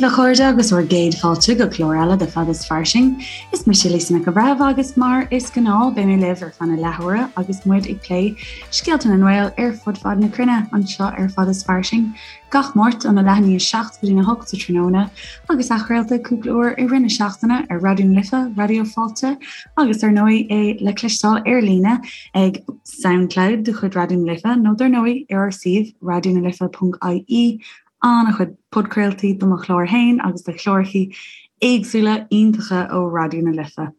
daoibh a chairde agus bhur gcéad fáilte go clár eile de Fada is Fairsing. Is mise Lisa Nic an Bhreithimh agus mar is gnáth beidh mé libh ar feadh na leathuaire agus muid ag plé scéalta na nGael ar fud fad na cruinne anseo ar Fada is Fairsing gach Máirt óna leath i ndiaidh 7 go dtí 8 sa tráthnóna agus athchraolta cúpla uair i rith na seachtaine ar Raidió na Life, Raidió Fáilte agus dar ndóigh é le cloisteáil ar líne ag Soundcloud de chuid Raidió na Life nó dar ndóigh ar ár suíomh raidionalife.ie An-chuid podchraoltaí do mo chlár féin agus do chlárachaí éagsúla iontacha ó Raidió na Life.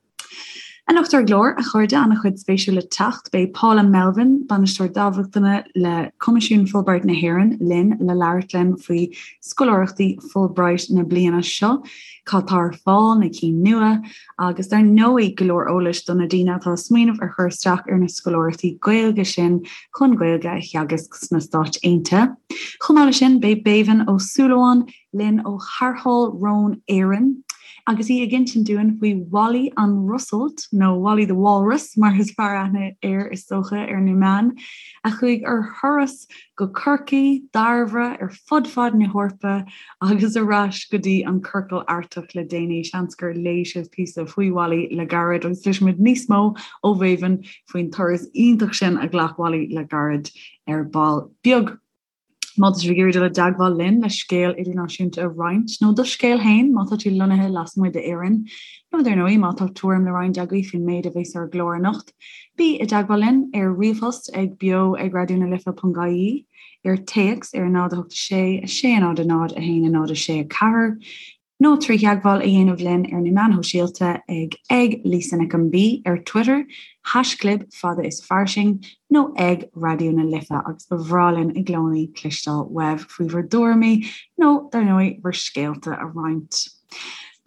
Anocht ar an gclár, a chairde, an-chuid spéisiúil le teacht. Beidh Paula Melvin, Bainisteoir Dámhachtana le Coimisiún Fulbright na hÉireann, linn le labhairt linn faoi scoláireachtaí Fulbright na bliana seo, cad tá ar fáil, na cinn nua, agus dar ndóigh go leor eolais do na daoine atá ag smaoineamh ar chur isteach ar na scoláireachtaí Gaeilge sin chun Gaeilge a theagasc sna Stáit Aontaithe. Chomh maith leis sin, beidh Béibhinn Ó Súilleabháin linn ó Tharrtháil Rón Éireann agus í ag insint dúinn faoi Wally an Rosalt, nó Wally the Walrus mar is fearr aithne air is dócha ar na meáin, a chuaigh ar thuras go Corcaigh, Dairbhre, ar fud fad na hEorpa agus ar ais go dtí an Ciorcal Artach le déanaí. Seans gur léigh sibh píosa faoi Wally le gairid agus cloisfimid níos mó ó Bhéibhinn faoin turas iontach sin a ghlac Wally le gairid ar ball beag. Má tá sibh ag iarraidh dul i dteagmháil linn le scéal idirnáisiúnta a roinnt, nó do scéal féin má tá tú lonnaithe lasmuigh d'Éirinn, nó dar ndóigh má tá tuairim le roinnt agaibh faoin méid a bheas ar an gclár anocht, Bí i dteagmháil linn ar ríomhphost ag beo ag raidionalife.ie, ar téacs ar 0 8 6 6 0 0 1 0 6 4, nó trí theagmháil a dhéanamh linn ar na meáin shóisialta ag ag Lisa Nic an B ar Twitter, haischlib fada is fairsing, nó ag Raidió na Life agus ba bhreá linn i gcónaí cloisteáil uaibh faoi bhur dtuairimí nó, dar ndóigh, bhur scéalta a roinnt.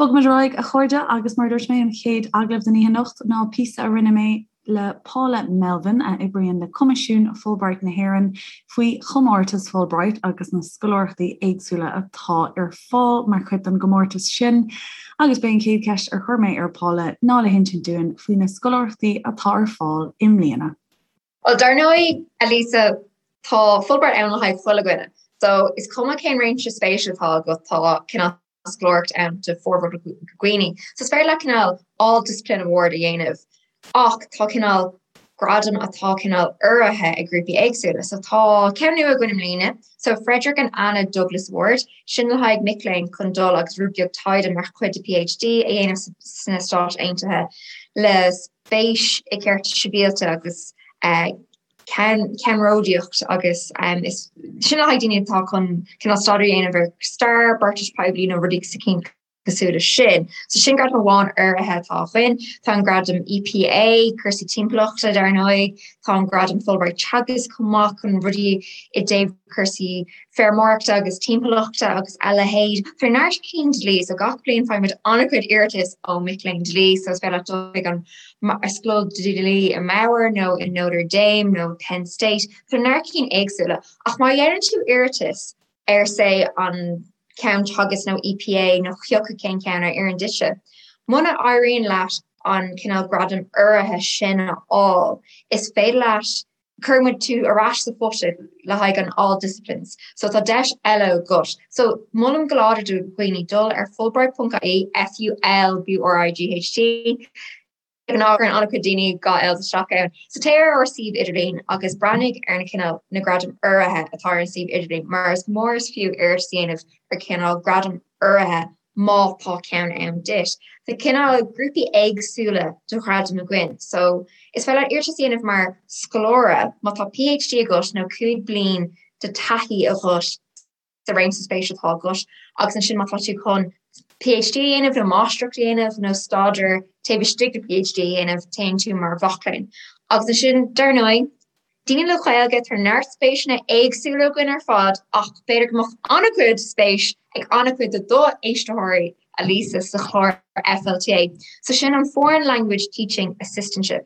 Bogfaimid ar aghaidh, a chairde, agus mar a dúirt mé, an chéad agallamh den oíche anocht ná píosa a rinne mé le Paula Melvin, a oibríonn le Coimisiún Fulbright na hÉireann, faoi chomórtas Fulbright agus na scoláireachtaí éagsúla atá ar fáil mar chuid den gcomórtas sin. Agus b'é an chéad cheist ar chuir mé ar Paula ná le hinsint dúinn faoi na scoláireachtaí atá ar fáil i mbliana. Bhuel, dar ndóigh, a Lisa, tá Fulbright ann le haghaidh chuile dhuine. So, is cuma cén réimse spéise atá agat, tá cineál scoláireacht ann do formhór na ndaoine. So, is féidir leat cineál all discipline award a dhéanamh ach tá cineál gradam atá cineál urraithe ag grúpaí éagsúla. So, tá ceann nua againn i mbliana, so Frederick and Anna Douglas Award, sin le haghaidh mic léinn chun dul agus rud beag taighde mar chuid de PhD a dhéanamh sna Stáit Aontaithe le spéis i gcearta sibhialta agus ceannródaíocht agus is sin le haghaidh daoine atá chun cineál staidéar a dhéanamh ar stair, beartais poiblí nó rudaí cosúil leis sin. So sin gradam amháin urraithe atá againn. Tá an gradam EPA, cúrsaí timpeallachta dar ndóigh, tá an gradam Fulbright Teagasc chomh maith chun rudaí i dtaobh cúrsaí feirmeoireachta agus timpeallachta agus a leithéid. Tá neart cinn dlí, so gach bliain faighimid an-chuid iarratas ó mic léinn dlí, so is féidir leat dul chuig an Scoil Dlí i mBauer nó i Notre Dame nó Penn State. Tá neart cinn éagsúla. Ach má dhéanann tú iarratas ar say an ceann Teagasc nó EPA nó cioca cén ceann a oireann duitse, muna éiríonn leat an cineál gradam urraithe sin a fháil, is féidir leat Cuireann muid tú ar ais sa phota le haghaidh an all disciplines. So tá deis eile agat. So molaim go láidir do dhaoine dul ar fulbright.ie, F-U-L-B-R-I-G-H-T, de ghnáth cuireann an-chuid daoine 2 L's isteach ann. So téigh ar ár suíomh idirlín agus breathnaigh ar na cineál na gradaim urraithe atá ar an suíomh idirlín mar is mór is fiú iarratas a dhéanamh ar cineál gradam urraithe má tá ceann ann duit. Tá cineál grúpaí éagsúla de ghradaim againn, so is féidir leat iarratas a dhéanamh mar scoláire má tá PhD agat nó 5 bliain de taithí agat sa réimse spéise atá agat agus ansin má tá tú chun PhD a dhéanamh nó máistreacht a dhéanamh nó staidéar taobh istigh de PhD a dhéanamh, téann tú mar mhac léinn. Agus ansin, dar ndóigh, Daoine le Gaeilge, tá neart spéiseanna éagsúla againn ar fad ach b'fhéidir go mbeadh an-chuid spéis ag an-chuid de do éisteoirí, a Lisa, sa chlár FLTA. So sin an Foreign Language Teaching Assistantship.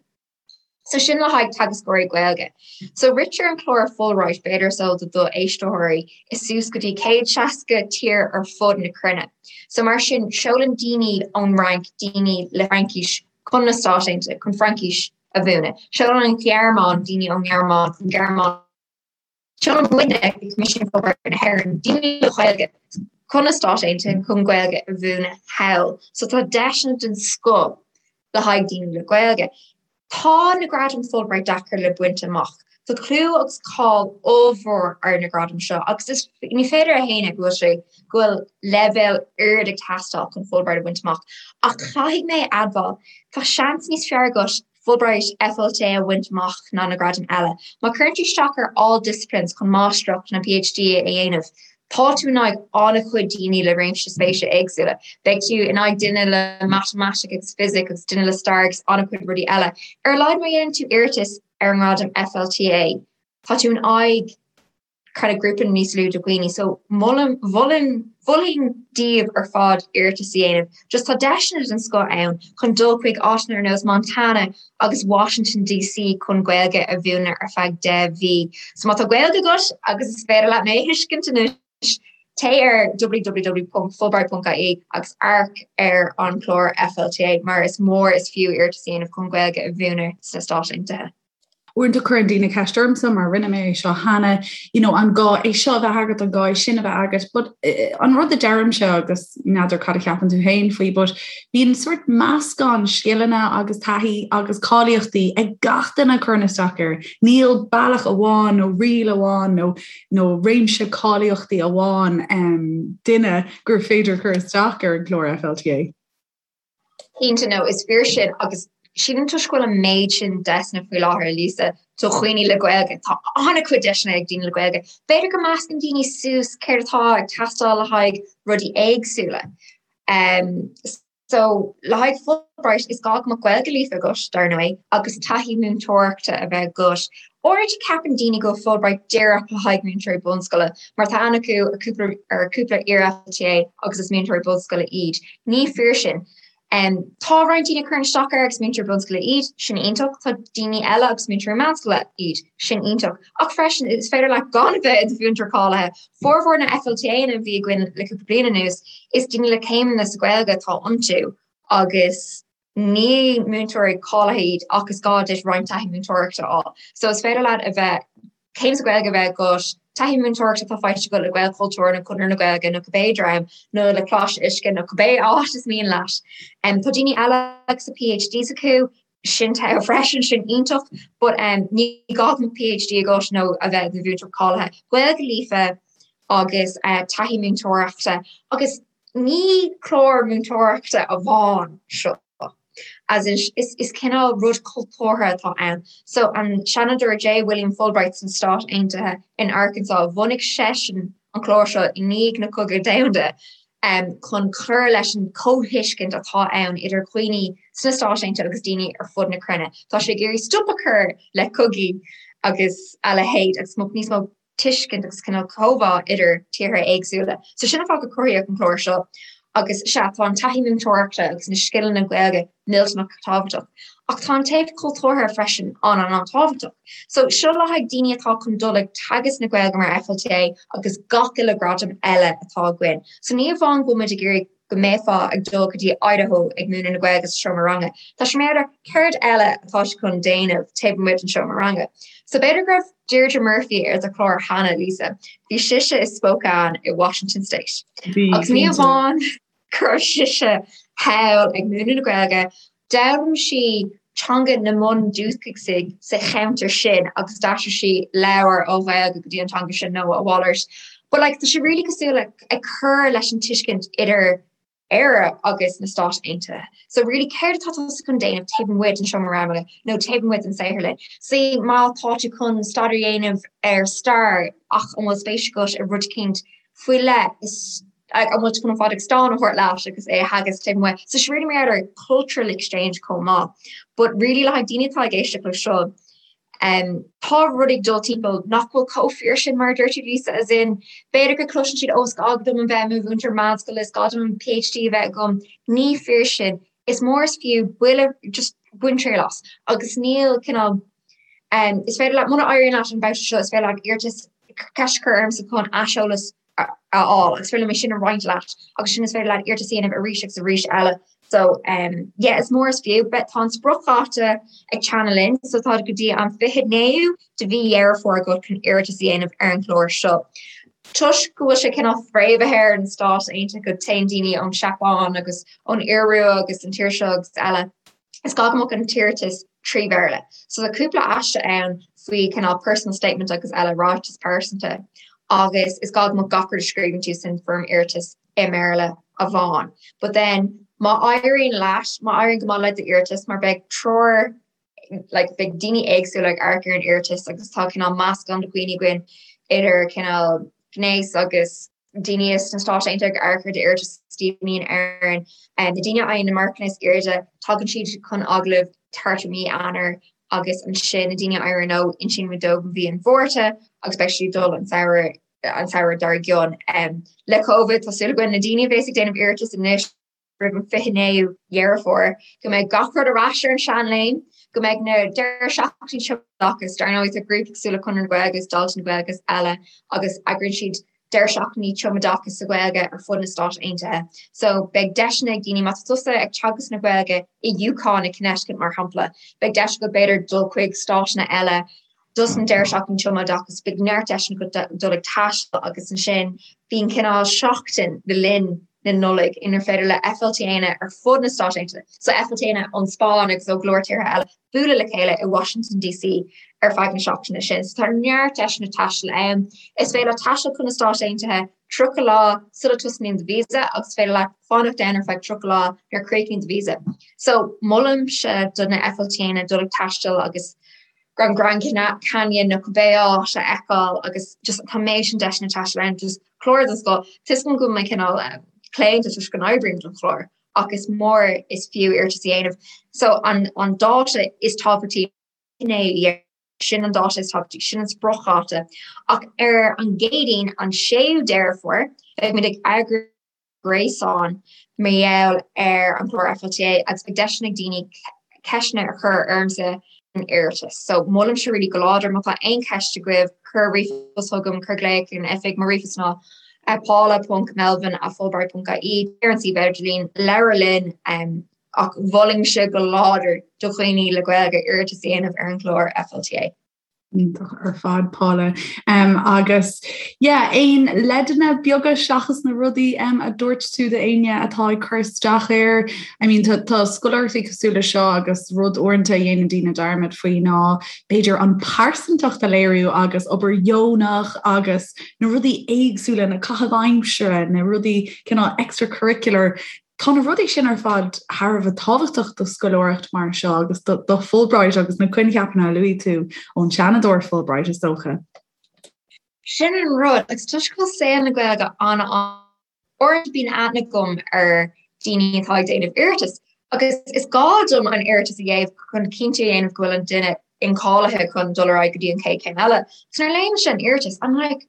So sin le haghaidh teagascóirí Gaeilge. So ritear an clár Fulbright, b'fhéidir is eol do do éisteoirí, i suas go dtí 160 tír ar fud na cruinne. So mar sin, seolann daoine ón Fhrainc daoine le Fraincis chun na Stáit Aontaithe chun Fraincis a mhúineadh. Seolann an Ghearmáin daoine ón nGearmáin chun Gearmáin. Seolann muidne, Coimisiún Fulbright na hÉireann, daoine le Gaeilge. chun na Stáit Aontaithe chun Gaeilge a mhúineadh thall. So tá deiseanna den scoth le haghaidh daoine le Gaeilge. Tá na gradaim Fulbright deacair le baint amach. Tá clú agus cáil ollmhór ar na gradaim seo agus is ní féidir a shéanadh go bhfuil sé go bhfuil leibhéal ard ag teastáil chun Fulbright a bhaint amach. Ach caithfidh mé a admháil, tá seans níos fearr agat Fulbright FLTA a bhaint amach ná na gradaim eile. Má chuireann tú isteach ar all disciplines chun máistreacht nó PhD a dhéanamh, tá tú in aghaidh an-chuid daoine le réimse spéise éagsúla. Beidh tú in aghaidh duine le matamaitic agus fisic agus duine le stair agus an-chuid rudaí eile. Ar a laghad má dhéanann tú iarratas ar an ngradam FLTA, tá tú in aghaidh kind of grúpa níos lú de dhaoine. So molaim, mholfainn, mholfainn daoibh ar fad iarratas a dhéanamh. Just tá deiseanna den scoth ann chun dul chuig áiteanna ar nós Montana agus Washington DC chun Gaeilge a mhúineadh ar feadh 10 mhí. So má tá Gaeilge agat agus is féidir leat mé a thuiscint anois, téigh ar www.fulbright.ie agus amharc ar an chlár FLTA mar is mór is fiú iarratas a dhéanamh chun Gaeilge a mhúineadh sna Stáit Aontaithe. Uaireanta cuireann daoine ceist ormsa mar rinne mé é seo cheana, you know, an gá é seo a bheith agat, an gá é sin a bheith agat, but eh, an rud a deirimse agus n'fheadar cad a cheapann tú féin faoi, but bíonn sort meascán scileanna agus taithí agus cáilíochtaí ag gach duine a chuireann isteach air. Níl bealach amháin nó riail amháin nó nó réimse cáilíochtaí amháin um, duine gur féidir cur isteach ar an gclár FLTA. Cinnte, no, is fíor sin agus sílim toisc go bhfuil an méid sin deiseanna faoi láthair, Lisa, do dhaoine le Gaeilge, tá an-chuid deiseanna ag daoine le Gaeilge. B'fhéidir go meascann daoine suas céard atá ag teastáil le haghaidh rudaí éagsúla. Um, so le haghaidh Fulbright is gá go mbeadh Gaeilge líofa agat, dar ndóigh, agus taithí múinteoireachta a bheith agat. Uaireanta ceapann daoine go bhfuil Fulbright díreach le haghaidh múinteoirí bunscoile, mar tá aithne acu ar cúpla ar cúpla iar-FLTA agus is múinteoirí bunscoile iad. Ní fíor sin. Tá roinnt daoine a chuireann isteach air agus múinteoirí bunscoile iad, sin iontach. Tá daoine eile agus múinteoirí meánscoile iad, sin iontach. Ach freisin, is féidir leat gan a bheith i do mhúinteoir cáilithe. Formhór na FLTA-anna a bhí againn le cúpla bliain anuas, is daoine le céimeanna sa Ghaeilge atá iontu agus Ní múinteoirí cáilithe iad ach is gá duit roinnt taithí múinteoireachta a fháil. So is féidir leat a bheith, céim sa Ghaeilge a bheith agat, taithí múinteoireachta atá faighte agat le Gaelchultúr nó Conradh na Gaeilge nó cibé dream nó le Coláiste Uisce nó cibé áit is mian leat. Tá daoine eile agus a PhDs acu, sin togha freisin, sin iontach, but ní gá go mbeadh PhD agat nó a bheith i do mhúinteoir cáilithe. Gaeilge líofa agus taithí múinteoireachta agus Ní clár múinteoireachta amháin seo, as in is cineál rud cultúrtha atá ann. So an Seanadóir J. William Fulbright sna Stáit Aontaithe in Arkansas, bhunaigh seisean an clár seo i ndiaidh na Cogaidh Domhanda chun cur leis an chomhthuiscint atá ann idir dhaoine sna Stáit Aontaithe agus daoine ar fud na cruinne. Tá sé ag iarraidh stop a chur le cogaí agus a leithéid agus níos mó tuiscint agus cineál comhbhá idir tíortha éagsúla. So sin an fáth gur cruthaíodh an clár seo. Agus sea, tá an taithí múinteoireachta agus na scileanna Gaeilge millteanach tábhachtach. Ach tá an taobh cultúrtha freisin an-an-an-tábhachtach. So seo le haghaidh daoine atá chun dul ag teagasc na Gaeilge mar FLTA agus gach uile gradam eile atá againn. So ní amháin go bhfuil muid ag iarraidh go mbeifeá ag dul go dtí Idaho ag múineadh na Gaeilge sa seomra ranga. Tá sé mar céard eile atá tú chun déanamh taobh amuigh den seomra ranga. So b'fhéidir go raibh Deirdre Murphy ar do chlár cheana, Lisa. Bhí sise i Spokane i Washington State. Agus ní amháin go raibh sise thall ag múineadh na Gaeilge, D'fhoghlaim sí teanga na mbundúchasaigh sa cheantar sin agus d'aistrigh sí leabhair ó Ghaeilge go dtí an teanga sin nó a mhalairt. But like tá sé really cosúil le ag cur leis an tuiscint idir Éire agus na Stáit Aontaithe. So really céard atá tusa chun déanamh taobh amuigh den seomra ranga nó taobh amuigh den saotharlann? Say má tá tú chun staidéar a dhéanamh ar stair ach an bhfuil spéis agat i rud eicínt faoi leith is an bhfuil tú chun an Phádraig Stáin a thabhairt leat agus é a theagasc taobh amuigh. So sé really mar gheall ar cultural exchange chomh maith. But really le haghaidh daoine atá ag éisteacht le seo, um, tá rudaí ag dul timpeall nach bhfuil chomh fíor sin mar a dúirt tú Lisa, as in b'fhéidir go cloiseann siad ó is gá dom a bheith i mo mhúinteoir meánscoile, is gá dom an PhD a bheith agam. Ní fíor sin. Is mór is fiú buille just bain triail as. Agus níl cineál um, is féidir leat muna éiríonn leat an babhta seo, is féidir leat iarratas ceist a chur ormsa chun aiseolas a fháil agus féidir liom é sin a roinnt leat agus sin is féidir leat iarratas a dhéanamh arís agus arís eile. So um, yeah, is mór is fiú, but tá an spriocdháta ag teannadh linn, so tá go dtí an 29ú de mhí Dheireadh Fómhair agat chun iarratas a dhéanamh ar an chlár seo. Toisc go bhfuil sé cineál fréamhaithe ar an Stát Aontaithe go téann daoine ón Seapáin agus ón Iorua agus an tír seo agus eile, is gá go mbeadh an t-iarratas trí Bhéarla. So tá cúpla aiste ann faoi cineál personal statement agus eile, ráiteas pearsanta, agus is gá go mbeadh gach rud a scríobhann tú san foirm iarratais i mBéarla amháin. But then má éiríonn leat, má éiríonn go maith le d'iarratas, mar beidh treoir like beidh daoine éagsúla ag amharc ar an iarratas agus tá cineál meascán de dhaoine againn idir cineál gnéas agus daoine sna Stáit Aontaithe ag amharc ar d'iarratas daoine in Éirinn. Na daoine a fhaigheann na marcanna is airde tagann siad chun agallaimh thart i mí Eanáir agus ansin na daoine a éiríonn leo insíonn muid dóibh mí an Mhárta agus beidh siad ag dul an samhradh an samhradh dár gcionn. Le Covid tá súil againn na daoine a bhéas ag déanamh iarratas anois roimh an 29ú Dheireadh Fómhair, go mbeidh gach rud ar ais ar an seanléim, go mbeidh na deireadh seachtainí tumoideachais, dar ndóigh tá grúpaí cosúil le Conradh na Gaeilge agus Daltaí na Gaeilge agus eile agus eagraíonn siad deireadh seachtainí tumoideachais sa Ghaeilge ar fud na Stát Aontaithe. So beidh deiseanna ag daoine, má tá tusa ag teagasc na Gaeilge i UConn i Connecticut mar shampla, beidh deis agat b'fhéidir dul chuig stáiteanna eile dos an deireadh seachtaine tumoideachais, beidh neart deiseanna agat dul ag taisteal agus ansin bíonn cineál seachtain le linn na Nollag inar féidir le FLTAnna ar fud na Stát Aontaithe, so FLTAnna ón Spáinn agus ó go leor tíortha eile, bualadh le chéile i Washington DC ar feadh na seachtaine sin. So tá neart deiseanna taistil ann. Is féidir leat taisteal chun na Stát Aontaithe 30 lá sula tosnaíonn do visa agus is féidir leat fanacht ann ar feadh 30 lá nuair a chríochnaíonn do visa. So molaimse do na FLTAnna dul ag taisteal agus an Grand Canyon nó cibé áit a fheiceáil agus just tá an méid sin deiseanna taistil ann just cláraigh don scoil. Tá a fhios agam go bhfuil mé cineál claonta toisc go n-oibrím don chlár ach is mór is fiú iarratas a dhéanamh. So an an dáta is tábhachtaí ná sin an dáta is tábhachtaí, sin an spriocdháta. Ach ar an gCéadaoin an 6ú Deireadh Fómhair beidh muid ag eagrú gréasáin mar gheall ar an gclár FLTA agus beidh deiseanna ag daoine ceisteanna a chur ormsa an iarratas. So molaimse really go láidir má tá aon cheist agaibh cuir ríomhphost chugam, cuir glaoch ar an oifig, mo ríomhphost ná paula.melvin@fulbright.ie ar an suíomh idirlín, labhair linn ach mholfainnse go láidir do dhaoine le Gaeilge iarratas a dhéanamh ar an gclár FLTA. Iontach ar fad Paula. Um, agus yeah, aon leideanna beaga seachas na rudaí um, a dúirt tú d'éinne atá ag cur isteach air. I mean, tá, tá scoláireachtaí cosúil le seo agus rud uaireanta a dhéanann daoine dearmad faoi ná b'fhéidir an pearsantacht a léiriú agus obair dheonach agus na rudaí éagsúla, na caithimh aimsire, na rudaí cineál extracurricular Tá na rudaí sin ar fad thar a bheith tábhachtach do scoláireacht mar seo agus do Fulbright agus na coincheapanna a luaigh tú ón Seanadóir Fulbright, is dócha. Sin an rud, agus toisc go bhfuil saol na Gaeilge an-uaireanta bíonn aithne agam ar daoine atá ag déanamh iarratas agus is gá dom an iarratas a dhéanamh chun cinnte a dhéanamh go bhfuil an duine incháilithe chun dul ar aghaidh go dtí an chéad chéim eile. So nuair a léimse an iarratas, I'm like,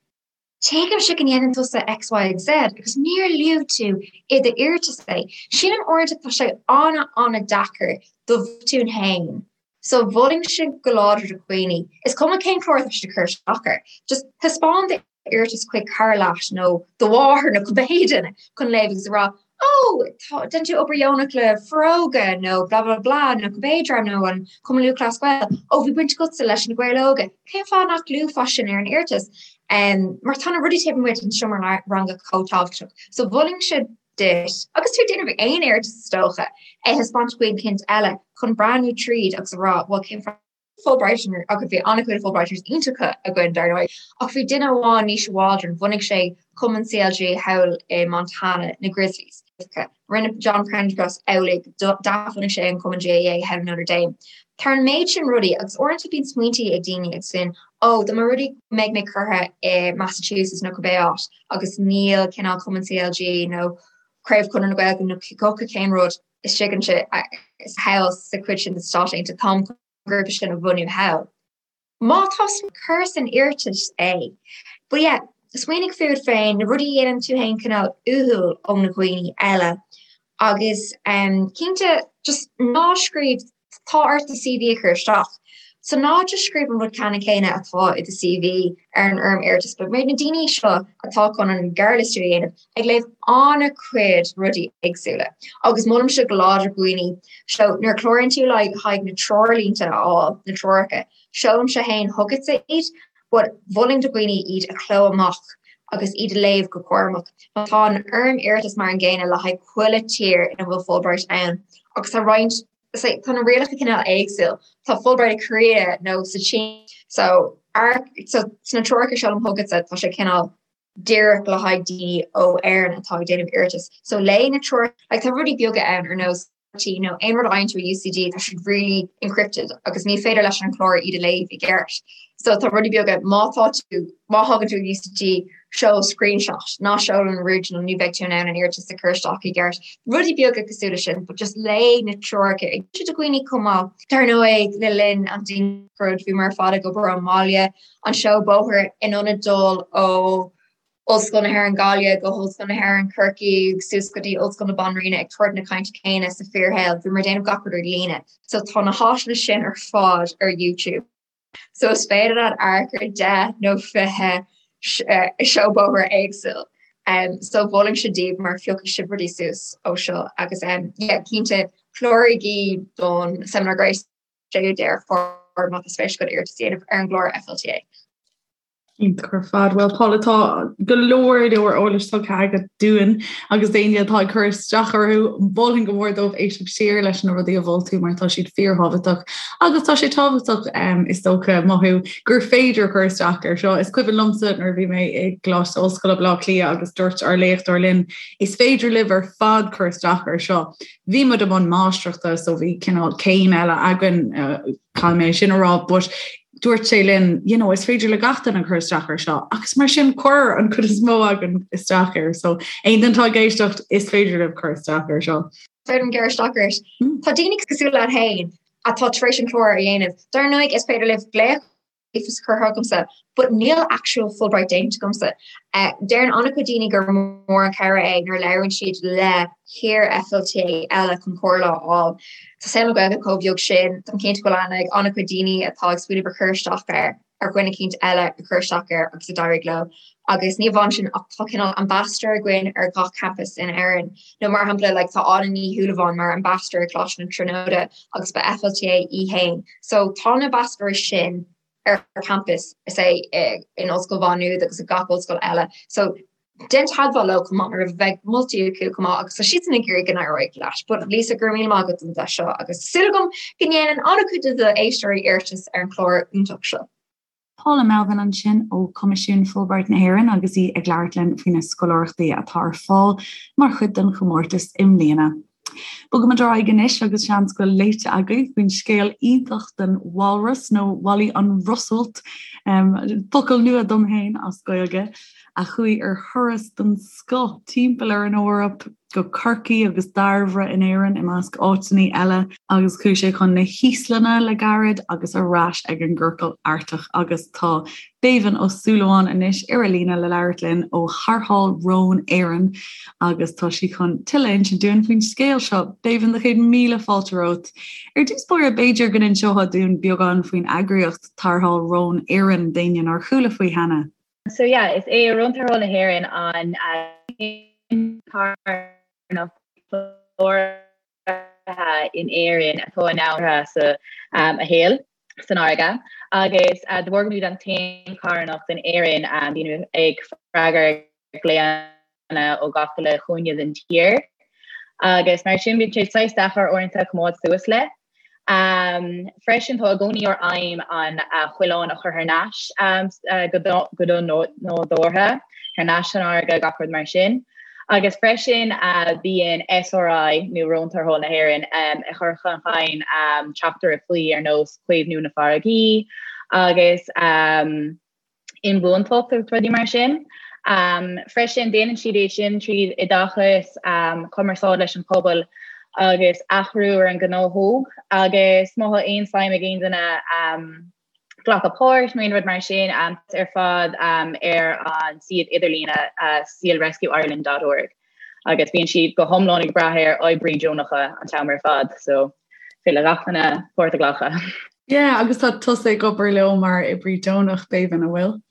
Tuigimse go ndéanann tusa X, Y agus Z agus níor luaigh tú i d'iarratas é. Sílim uaireanta tá sé an-an-deacair do bhotúin féin. So mholfainnse go láidir do dhaoine, is cuma cén clár atá siad ag cur isteach air, just taispeáin d'iarratas chuig cara leat nó do mháthair nó cibé duine chun léamh agus a rá Ó, tá, déanann tú obair dheonach le Foróige nó blah blah blah nó cibé dream nó an Cumann Lúthchleas Gael. Ó, bhí baint agatsa leis na Gaeil Óga. Cén fáth nach luafá sin ar an iarratas? Um, mar tá na rudaí taobh amuigh den seomra ranga chomh tábhachtach. So mholfainnse duit, agus tú ag déanamh aon iarratas is dócha, é thaispeáint do dhuine éicint eile chun breathnú tríd agus a rá, bhuel cén fáth Fulbrighters agus bhí an-chuid Fulbrighters iontacha againn dar ndóigh, ach bhí duine amháin, Naoise Waldron, bhunaigh sé cumann CLG thall i Montana, na Grizzlies. Rinne John Prendergast amhlaidh, d'athbhunaigh sé an cumann GAA thall in Notre Dame. Tá an méid sin rudaí agus uaireanta bíonn smaointí ag daoine agus sin, ó, dá mba rud é go mbeidh mé curtha i Massachusetts nó cibé áit agus níl cineál cumann CLG nó craobh Chonradh na Gaeilge nó cibé cén rud, istigh ansin thall sa chuid sin de Stáit Aontaithe, táim chun an grúpa sin a bhunú thall. Má tá cuir san iarratas é. But yeah, smaoinigh fút féin, na rudaí a dhéanann tú féin cineál uathúil ó na dhaoine eile agus um, cinnte just ná scríobh tá ort do CV a chur isteach. So ná just scríobh an rud ceannann céanna atá i do CV ar an fhoirm iarratais, but mar na daoine seo atá chun an gearrliostú a dhéanamh, ag léamh an-chuid rudaí éagsúla agus molaimse go láidir dhaoine so nuair a chláraíonn tú le haghaidh na treoirlínte a fháil, na treoracha, seolaimse féin chugatsa iad but mholfainn do dhaoine iad a chló amach agus iad a léamh go cúramach. Tá an fhoirm iarratais mar an gcéanna le haghaidh chuile tír ina bhfuil Fulbright ann agus tá roinnt tá na rialacha cineál éagsúil. Tá Fulbright i Korea nó sa tSín so so sna treoracha seo liom chugatsa tá sé cineál díreach le haghaidh daoine ó Éirinn atá ag déanamh iarratas. So léigh na treoracha like tá rudaí beaga ann ar nós nó aon rud a fhaigheann tú i UCD tá siad really encrypted agus ní féidir leis an chlár iad a léamh i gceart. So tá rudaí beaga má tá tú má thagann tú UCD seol screenshot ná seol an original ní bheidh tú in ann an iarratas a chur isteach i gceart. Rudaí beaga cosúil leis sin, but just léigh na treoracha ag do dhaoine chomh maith. Dar ndóigh le linn an dianghrud bhíomar ar fad ag obair ón mbaile an seó bóthair in ionad dul ó Ollscoil na hÉireann Gaillimh go hOllscoil na hÉireann Corcaigh suas go dtí Ollscoil na Banríona ag tabhairt na cainte céanna sa fíorshaol. Bhíomar ag déanamh gach rud ar líne. So tá na háiseanna sin ar fad ar YouTube. So is féidir leat amharc ar 10 nó 20 seó bóthair éagsúil. Um, so mholfainnse daoibh mar phiocfaidh sibh rudaí suas ó seo agus um, yeah, cinnte cláraigí don Seimineár Gréasáin 6ú Deireadh Fómhair má tá spéis agat iarratas a dhéanamh ar an gclár FLTA. Iontach ar fad. Bhuel Paula tá go leor leor eolais tugtha agat dúinn agus d'éinne atá ag cur isteach orthu, mholfainn go mór dóibh éisteacht siar leis na rudaí a mhol tú mar tá siad fíorthábhachtach agus tá sé tábhachtach um, is dócha mothú gur féidir cur isteach ar seo. Is cuimhin liomsa nuair a bhí mé i gColáiste Ollscoile Baile Átha Cliath agus dúirt ár léachtóir linn is féidir libh ar fad cur isteach ar seo. Bhí muid i mbun máistreachta so bhí cineál céim eile againn uh, caithfidh mé sin a rá, but dúirt sé linn, you know, is féidir le gach duine cur isteach ar seo, agus mar sin chuir an chuid is mó againn isteach air, so aon duine atá ag éisteacht is féidir libh cur isteach ar seo. Féidir liom gearradh isteach ort. Hmm. Tá daoine cosúil leat féin atá tar éis an clár a dhéanamh. Dar ndóigh is féidir libh glaoch is curtha agamsa, but níl actual Fulbright déanta agamsa. Eh, deireann an-chuid daoine gur mór an cabhair é nuair a labhrann siad le hiar-FLTA eile chun comhairle a fháil. Tá saol na Gaeilge chomh beag sin, táim cinnte go bhfuil aithne ag an-chuid daoine atá ag smaoineamh ar chur isteach air, ar dhuine eicínt eile a chuir isteach air agus a d'éirigh leo. Agus ní amháin sin ach tá cineál ambassador againn ar gach campus in Éirinn. Nó mar shampla like tá Áine Ní Shúilleabháin mar ambassador ag Coláiste na Tríonóide agus ba FLTA í féin. So tá na ambassadors sin ar campus is é in Ollscoil Mhá Nuad agus i gach ollscoil eile. So déan teagmháil leo chomh maith mar bheidh moltaí acu chomh maith agus tá siadsan ag iarraidh go n-éireoidh leat. But Lisa go raibh míle maith agat don deis seo agus súil agam go ndéanann an-chuid de d'éisteoirí iarratas ar an chlár iontach seo. Paula Melvin ansin ó Choimisiún Fulbright na hÉireann agus í ag labhairt linn faoi na scoláireachtaí atá ar fáil mar chuid den chomórtas i mbliana. Bogaimid ar aghaidh anois agus seans go bhfuil léite agaibh faoin scéal iontach den walrus nó Wally an Rosualt, focal nua dom féin as Gaeilge, a chuaigh ar thuras den scoth timpeall ar an Eoraip, go Corcaigh agus Dairbhre in Éirinn i measc áiteanna eile, agus chuaigh sé chun na hÍoslainne le gairid agus ar ais ag an gCiorcal Artach agus tá Béibhinn Ó Súilleabháin anois ar an líne le labhairt linn ó Tharrtháil Rón Éireann agus tá sí chun tuilleadh a insint dúinn faoin scéal seo. Béibhinn, do chéad míle fáilte romhat. Ar dtús báire, b'fhéidir go n-inseofá dúinn beagán faoin eagraíocht Tarrtháil Rón Éireann d'éinne nár chuala faoi cheana. So yeah, is é Rón Tarrthála na hÉireann an carthanacht chláraithe in Éirinn atá in ann sa a shaol san fharraige agus de bharr go bhfuilimid an t-aon charthanacht in Éirinn bíonn ag freagairt glaonna ó gach uile chúinne den tír agus mar sin bíonn sé saghas deacair uaireanta coimeád suas le. Freisin tá i gcónaí ár aidhm an coileán a chur thar n-ais go nádúrtha, thar n-ais san fharraige, gach rud mar sin. Agus freisin bíonn SRI nó Rón Tarrthála na hÉireann ag cur chun cinn teachtaireachtaí ar nós caomhnú na farraigí agus inbhuantacht agus rudaí mar sin. Freisin, déanann siad é sin tríd oideachas, cumarsáid leis an pobal agus athrú ar an ngnáthóg agus má tá aon suim ag aon duine glacadh páirt nó aon rud mar sin, ar fad ar an suíomh idirlíne sealrescueireland dot org agus bíonn siad go hiomlán ag brath ar oibrí deonacha an t-am ar fad so féidir le gach duine páirt a ghlacadh. Yeah, agus tá tusa ag obair leo mar oibrí deonach, Béibhinn, an bhfuil?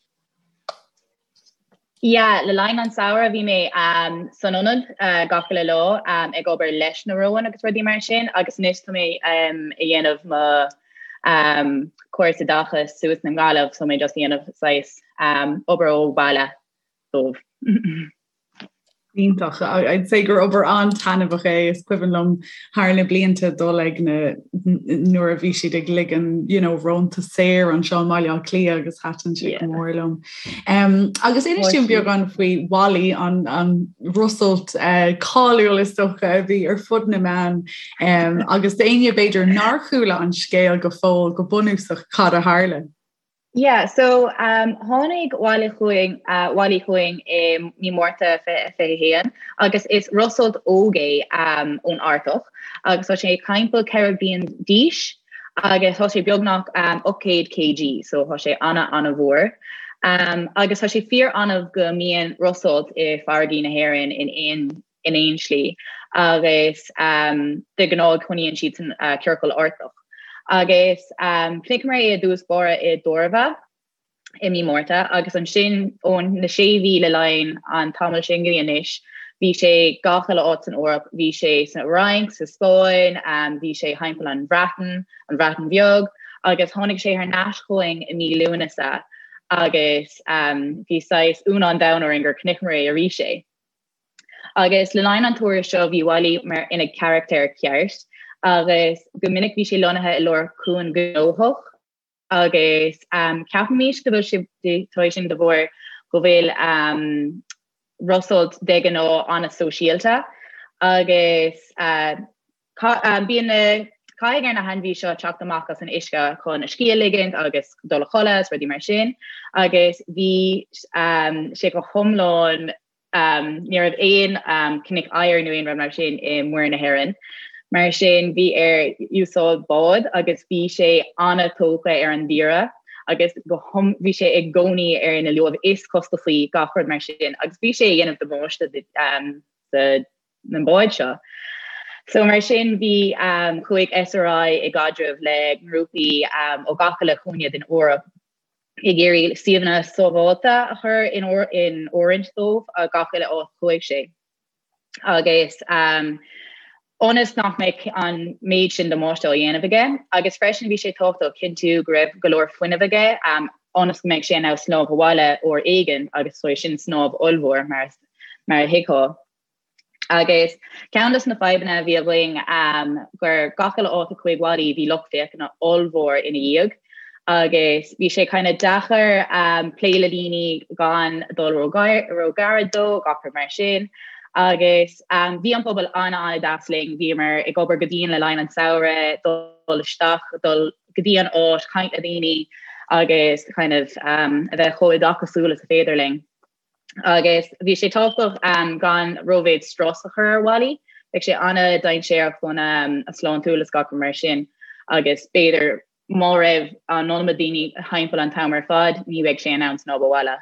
Yeah, le linn an samhradh bhí mé um, san ionad uh, gach uile lá um, ag obair leis na róin agus rudaí mar sin agus anois tá mé um, ag dhéanamh mo um, cúrsa oideachais suas i nGaillimh so mé just ag dhéanamh saghas um, obair ó bhaile. dóibh. Iontach. I'd say gur obair an-taitneamhach é. Is cuimhin liom thar na blianta dul ag na nuair a bhí siad ag ligean you know, rónta saor anseo i mBaile Átha Cliath agus thaitin sé go mór liom. Um, agus inis dúinn beagán faoi Wally an, an rosalt uh, cáiliúil is dócha a bhí ar fud na meán um, agus d'éinne b'fhéidir nár chuala an scéal go fóill go bunúsach cad a tharla. Yeah, so um, tháinig Wally chugainn uh, Wally chugainn i mí Márta 2021 agus is rosalt óg é um, ón Artach agus tá sé timpeall 4 bliain d'aois agus tá sé beagnach um, 800 kg, so tá sé ana ana-mhór. Um, agus tá sé fíor annamh go mbíonn rosalt i farraigí na hÉireann in aon in aon slí agus de ghnáth coinníonn siad san ciorcal Artach. Agus chonaiceamar é i dtús báire i dTorva i mí Márta agus ansin ó na sé mhí le linn an tamall sin go dtí anois bhí sé gach uile áit san Eoraip, bhí sé san Fhrainc, sa Spáinn, bhí sé thimpeall an Bhreatain, an Bhreatain Bheag agus tháinig sé thar n-ais chugainn i mí Lúnasa agus bhí saghas ionadh an domhain orainn gur chonaiceamar é arís é. Agus le linn an turais seo bhí Wally mar ina charachtar ceart agus go minic bhí sé lonnaithe i lár cuan gnóthach agus ceapaimid go bhfuil sé tá sin de bharr go bhfuil rosalt de ghnáth an-sóisialta agus Bíonn na caithfidh ar na hainmhí seo teacht amach as an uisce chun a scíth a ligint agus dul a chodladh is rudaí mar sin agus bhí sé go hiomlán ní raibh aon cnoic oighir nó aon rud mar sin i Muir na hÉireann. Mar sin bhí air úsáid bád agus bhí sé an-tógtha ar an dtír agus go bhí sé i gcónaí ar na luaimh is costasaí gach rud mar sin agus bhí sé ag déanamh damáiste do na báid seo. So mar sin bhí chuaigh SRI i gcaidreamh le grúpaí ó gach uile chúinne den Eoraip ag iarraidh suíomhanna sábháilte a chur in in oiriúint dóibh a gach uile áit chuaigh sé. Agus ionas nach mbeadh an méid sin damáiste á dhéanamh aige agus freisin bhí sé tábhachtach cinntiú go raibh go leor fuinnimh aige ionas go mbeadh sé in ann snámh abhaile uair éigin agus sin snámh ollmhór mar mar a thuigfeá. Agus ceann de na fadhbanna a bhí againn gur gach uile áit a chuaigh Wally bhí lucht féachana ollmhór ina dhiaidh agus bhí sé kind of deacair plé le daoine gan dul ró-ghairid dó, gach rud mar sin. Agus bhí an pobal an-an-deas linn, bhíomar ag obair go dian le linn an samhradh, dul isteach, dul go dtí an áit, caint le daoine agus kind of a bheith chomh oideachasúil is a féidir linn. Agus bhí sé tábhachtach gan rómhéid strus a chur ar Wally. Bheadh sé an-dainséarach don a sláintiúil is gach rud mar sin agus b'fhéidir má raibh an iomarca daoine thimpeall an t-am ar fad ní bheadh sé in ann snámh abhaile.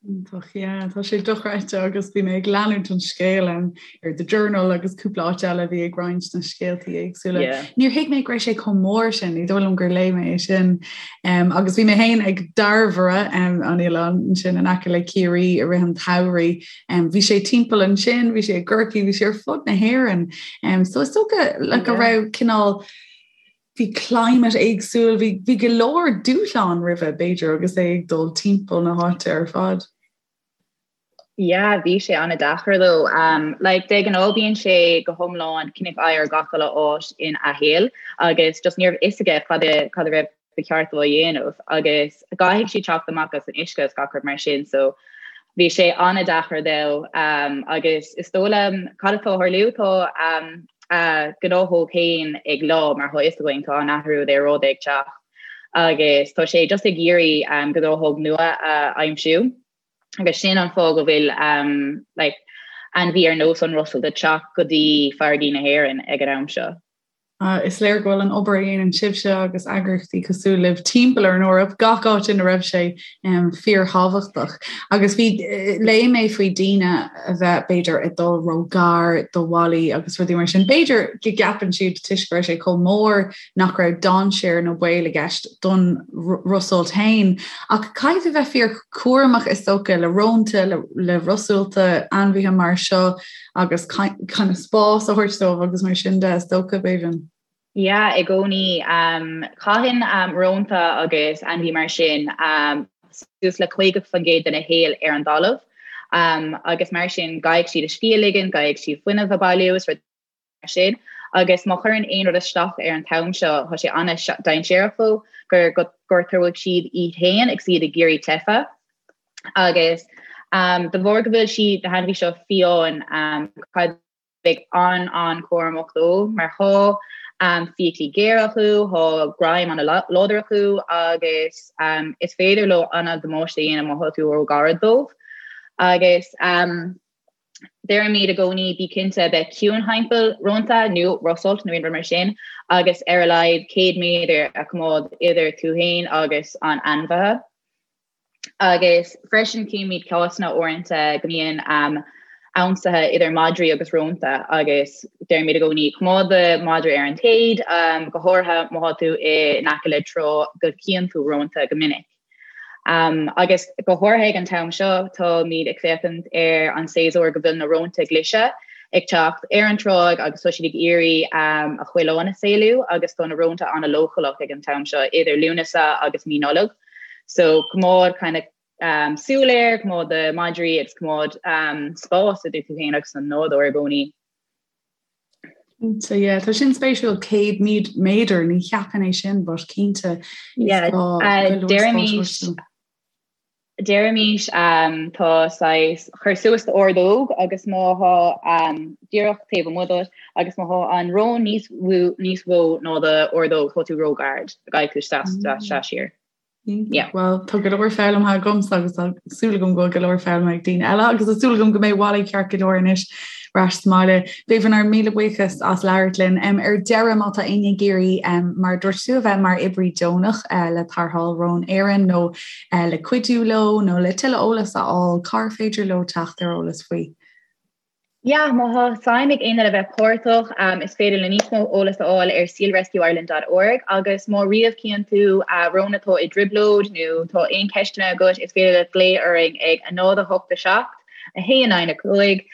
Iontach, yeah, tá sé dochreidte agus bhí mé ag leanúint an scéil ar The Journal agus cúpla áit eile a bhí ag roinnt na scéaltaí éagsúla. Yeah. Níor thuig mé go raibh sé chomh mór sin, ní dóigh liom gur léigh mé é sin. Um, agus bhí mé féin ag Dairbhre um, an oileán ansin in aice le Ciarraí i rith an tsamhraidh. Um, bhí sé timpeall ansin, bhí sé i gCorcaigh, bhí sé ar fud na hÉireann. Um, so is dócha le go raibh cineál bhí climate éagsúil, bhí, bhí go leor dúshlán roimhe b'fhéidir agus é ag dul timpeall na háite ar fad. Yeah, bhí sé an-deacair dó. Um, like, de ghnáth bíonn sé go hiomlán cnoic oighir gach uile áit ina shaol agus just ní raibh fhios aige cad a cad a raibh ba cheart dó a dhéanamh agus caithfidh siad teacht amach as an uisce is gach rud mar sin so bhí sé an-deacair dó um, agus is dóigh liom cad atá ag tarlú tá um, a gnáthóg féin ag leá mar tá fhios againn tá an athrú aeráide ag teacht agus tá sé just ag iarraidh um, gnáthóg nua a aimsiú. agus sin an fáth go bhfuil um, like, ainmhí ar nós an rosalt ag teacht go dtí farraigí na hÉireann ag an am seo. Uh, is léir go bhfuil an obair a dhéanann sibhse agus eagraíochtaí cosúil libh timpeall ar an Eoraip gach áit ina raibh sé um, fíorthábhachtach. Agus bhí eh, léigh mé faoi daoine a bheith b'fhéidir ag dul ró-ghar do Wally agus rudaí mar sin. B'fhéidir go gceapann siad toisc go raibh sé chomh mór nach raibh dainséar nó baol i gceist don rosalt féin. Ach caithfidh tú bheith fíor cúramach is dócha le rónta, le rosalta, ainmhithe mar seo agus kind of spás a thabhairt dóibh agus mar sin de is dócha, Bébhinn. Yeah, i gcónaí. Caitheann rónta agus ainmhí mar sin suas le 50% dena shaol ar an dtalamh. Agus mar sin caithfidh siad a scíth a ligean, caithfidh siad fuinneamh a bailiú is rud mar sin. Agus má chuireann aon rud isteach ar an t-am seo, tá sé an-dainséarach dóibh go gortóidh siad iad féin agus iad ag iarraidh teitheadh. Agus de bharr go bhfuil siad, na hainmhithe seo fiáin, caithfidh bheith an-an-chúramach dóibh mar thá fiaclaí géara acu, thá greim an-láidir acu agus is féidir leo an-damáiste a dhéanamh má thá tú ró-ghairid dóibh. Agus deirimid i gcónaí bí cinnte a bheith ciúin thimpeall rónta nó rosolt nó aon rud mar sin agus ar a laghad 100 méadar a choimeád idir tú féin agus an ainmhithe. Agus freisin címid cásanna uaireanta go mbíonn ionsaithe idir madraí agus rónta agus deirimid i gcónaí coimeád do mhadra ar an téad, go háirithe má thá tú in aice le trá go gcíonn tú rónta go minic. Agus go háirithe ag an t-am seo táimid ag féachaint ar an séasúr go bhfuil na rónta glaise ag teacht ar an tráigh agus tá siad ag iarraidh a choileáin a saolú agus tá na rónta an-leochaileach ag an t-am seo idir Lúnasa agus mí Nollag. So coimeád kind of um, súil air, coimeád do madraí agus coimeád um, spás idir tú féin agus an nádúr i gcónaí. So yeah, tá sin spéisiúil 100 méadar ní cheapfainn é sin but cinnte yeah, uh, deirimís deirimís um, tá saghas cuir suas d'ordóg agus má thá um, díreach taobh amuigh díot agus má thá an rón níos níos mó ná do ordóg tá tú róghairid caithfidh tú seasamh siar. Yeah. Well tá go leor foghlamtha agamsa agus tá súil agam go bhfuil go leor foghlamtha ag daoine eile agus tá súil agam go mbeidh Wally ceart go leor anois ar ais sa mbaile. Béibhinn ár míle buíochas as labhairt linn. Um, ar deireadh má tá éinne ag iarraidh um, mar dúirt tú a bheith mar oibrí deonach uh, le Tarrtháil Rón Éireann nó uh, le cuidiú leo nó le tuilleadh eolas a fháil, cár féidir leo teacht ar eolas faoi? Yeah, má thá suim ag éinne le bheith páirteach, is féidir le níos mó eolas a fháil ar sealrescueireland dot org agus má riamh cíonn tú rón atá i dtrioblóid nó tá aon ceisteanna agat, is féidir leat glao orainn ag 0 8 7 1 9 5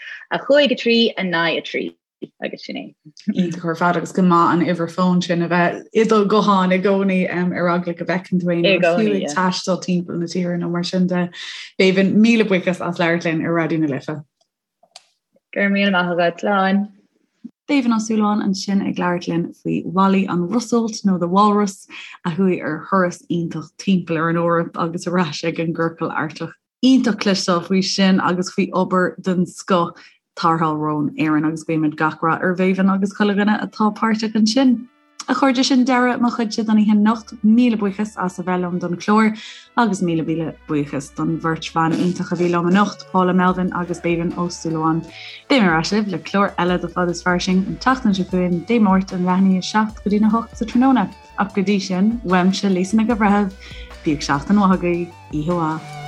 5 3 9 3 agus sin é. Iontach ar fad agus go maith an uimhir fóin sin a bheith i do ghuthán i gcónaí ar eagla go bhfeiceann tú aon rud fiú ag taisteal timpeall na tíre nó mar sin de. Béibhinn, míle buíochas as labhairt linn ar Raidió na Life. Go raibh míle maith agat, slán. Béibhinn Ó Súilleabháin ansin ag labhairt linn faoi Wally an Rosolt nó The Walrus a chuaigh ar thuras iontach timpeall ar an Eoraip agus ar ais ag an gCiorcal Artach. Iontach cloisteáil faoi sin agus faoi obair den scoth Tarrtháil Rón Éireann agus guímid gach rath ar Bhéibhinn agus chuile dhuine atá páirteach ansin. A chairde, sin deireadh mo chuidse don oíche anocht. Míle buíochas as a bheith liom don chlár agus míle míle buíochas don bheirt bhan iontach a bhí liom anocht, Paula Melvin agus Béibhinn Ó Súilleabháin. Beidh mé ar ais libh le clár eile de Fad is Fairsing an tseachtain seo chugainn, Dé Máirt ón leath i ndiaidh a 7 go dtí'n 8 sa tráthnóna. Ach go dtí sin, uaimse Lisa Nic an Bhreithimh, bíodh seachtain mhaith agaibh, oíche mhaith.